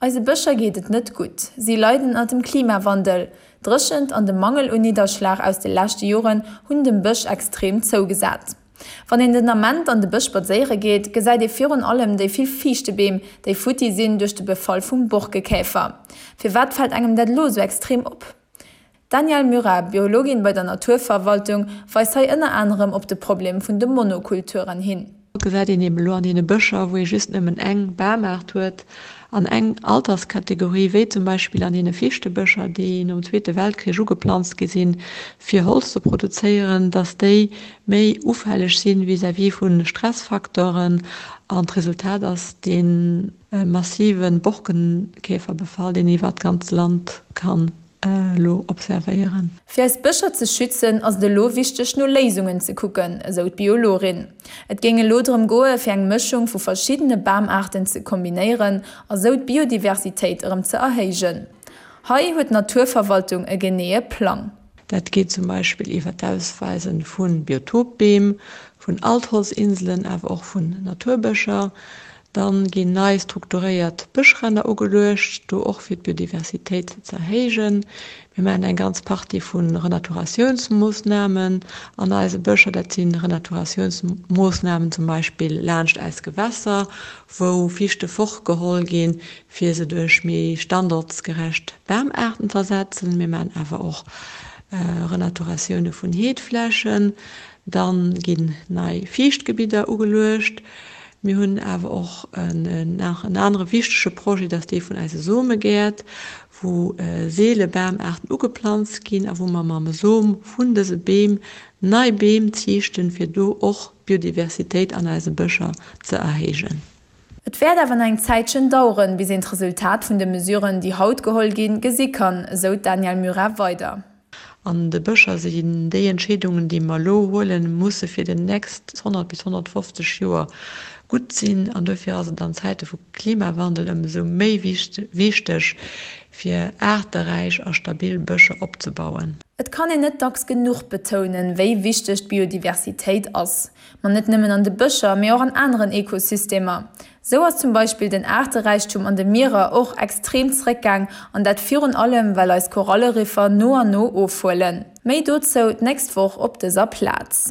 Eise Bëscher geet et net gutt. Si leiden ënner dem Klimawandel. D'Dréchent an de Mangel un Nidderschlag aus de leschte Joren hunn dem Bësch extrem zougesat. Wann een den Ament an de Bësch spadséiere geet, gesäit ee virun allem déi vill Fiichtebeem, déi futti sinn duerch de Befall vum Borkekäfer. Firwat fält engem dat elo esou extrem op? D'Danièle Murat, Biologin bei der Naturverwaltung, weist hei ënner anerem op de Problem vun de Monokulturen hin. Et gesäit een eben elo an deene Bëscher, wou ee just nëmmen eng Bamaart huet an eng Alterskategorie, wéi zum Beispill an deene Fichtebëscher, déi nom Zweete Weltkrich ugeplanzt gi sinn, fir Holz ze produzéieren, datt déi méi ufälleg sinn vis-à-vis vu Stressfacteuren. An d'Resultat ass dee massive Borkenkäferbefall, deen een iwwert d'ganzt Land kann elo observéieren. Fir eis Bëscher ze schützen, ass et elo wichteg no Léisungen ze kucken, esou d'Biologin. Et géing elo drëm goe fir eng Mëschung vu verschiddene Bamaarten ze kombinéieren a sou d'Biodiversitéit erëm ze erhéijen. Hei huet d'Naturverwaltung e geneeë Plang. Dat geet zum Beispill iwwer d'Ausweise vu Biotopbeem, vun Altholzinselen, awer och vun Naturbëscher. Dann ginn nei strukturéiert Bëschränner ugeluecht, do och fir d'Biodiversitéit ze erhéijen. Mir maachen eng ganz Partie vu Renaturatiounsmoossnamen an eise Bëscher. Dat si Renaturatiounsmoossnamen zum Beispill laanscht eis Gewässer, wou Fichte fortgeholl ginn, fir se duerch méi standortsgerecht Bamaarten z'ersetzen. Mir maachen awer och Renaturatioune vun Heedflächen. Dann ginn nei Fiichtgebidder ugeluecht. Mir hunn awer och nach en anere wichtege Projet, dat ass dee vun eise Somegäert, wou seele Bamaarten ugeplanzt ginn a wou mer mam Som vun dëse Beem nei Beem ziichten, fir do och d'Biodiversitéit an eise Bëscher ze erhéijen. Et wäert awer nach eng Zäitchen daueren, bis een d'Resultat vun de Mesuren, déi haut geholl ginn, gesi kann, esou d'Danièle Murat weider. An de Bëscher sinn déi Entscheedungen, déi mer elo huelen, musse fir déi nächst 100 bis 150 Joer gutt sinn. An duerfir ass et an Zäite vu Klimawandel ëmsou méi wichteg, fir aarteräich a stabil Bëscher opzebauen. Et kann een net dacks genuch betounen, wéi wichteg d'Biodiversitéit ass. Ma net nëmmen an de Bëscher, mee och an aneren Ekosystemer. Sou ass zum Beispill den Aarteräichtum an de Mierer och extrem zréckgaang, an dat virun allem well eis Koralleriffer no an no ofhuelen. Méi dozou d'nächst Woch op dëser Plaz.